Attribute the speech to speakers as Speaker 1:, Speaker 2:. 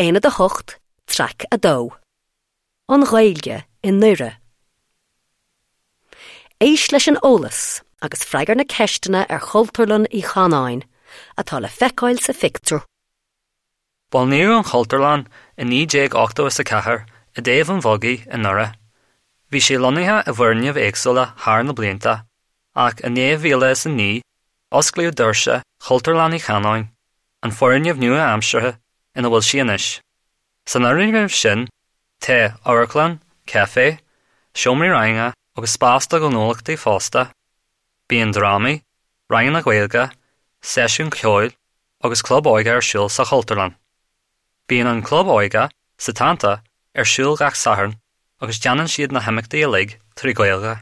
Speaker 1: Aonad 8, Traic 2. An Ghaeilge i nDoire. Éist leis an eolas agus freagair na ceisteanna ar Chultúrlann Uí Chanáin, atá le feiceáil sa phictiúr.
Speaker 2: Bunaíodh an Chultúrlann i 1984 i dTaobh an Bhogaigh i nDoire. Bhí sí lonnaithe i bhfoirgnimh éagsúla thar na blianta, ach in 2009 osclaíodh doirse Chultúrlann Uí Chanáin, an foirgneamh nua-aimseartha ina bhfuil sí anois. San fhoirgneamh sin tá amharclann, caifé, seomraí ranga agus spás do ghnólachtaí fosta. Bíonn drámaí, ranganna Gaeilge, seisiúin cheoil agus club óige ar siúl sa Chultúrlann. Bíonn an club óige, Setanta, ar siúl gach Satharn agus déanann siad na himeachtaí uilig trí Ghaeilge.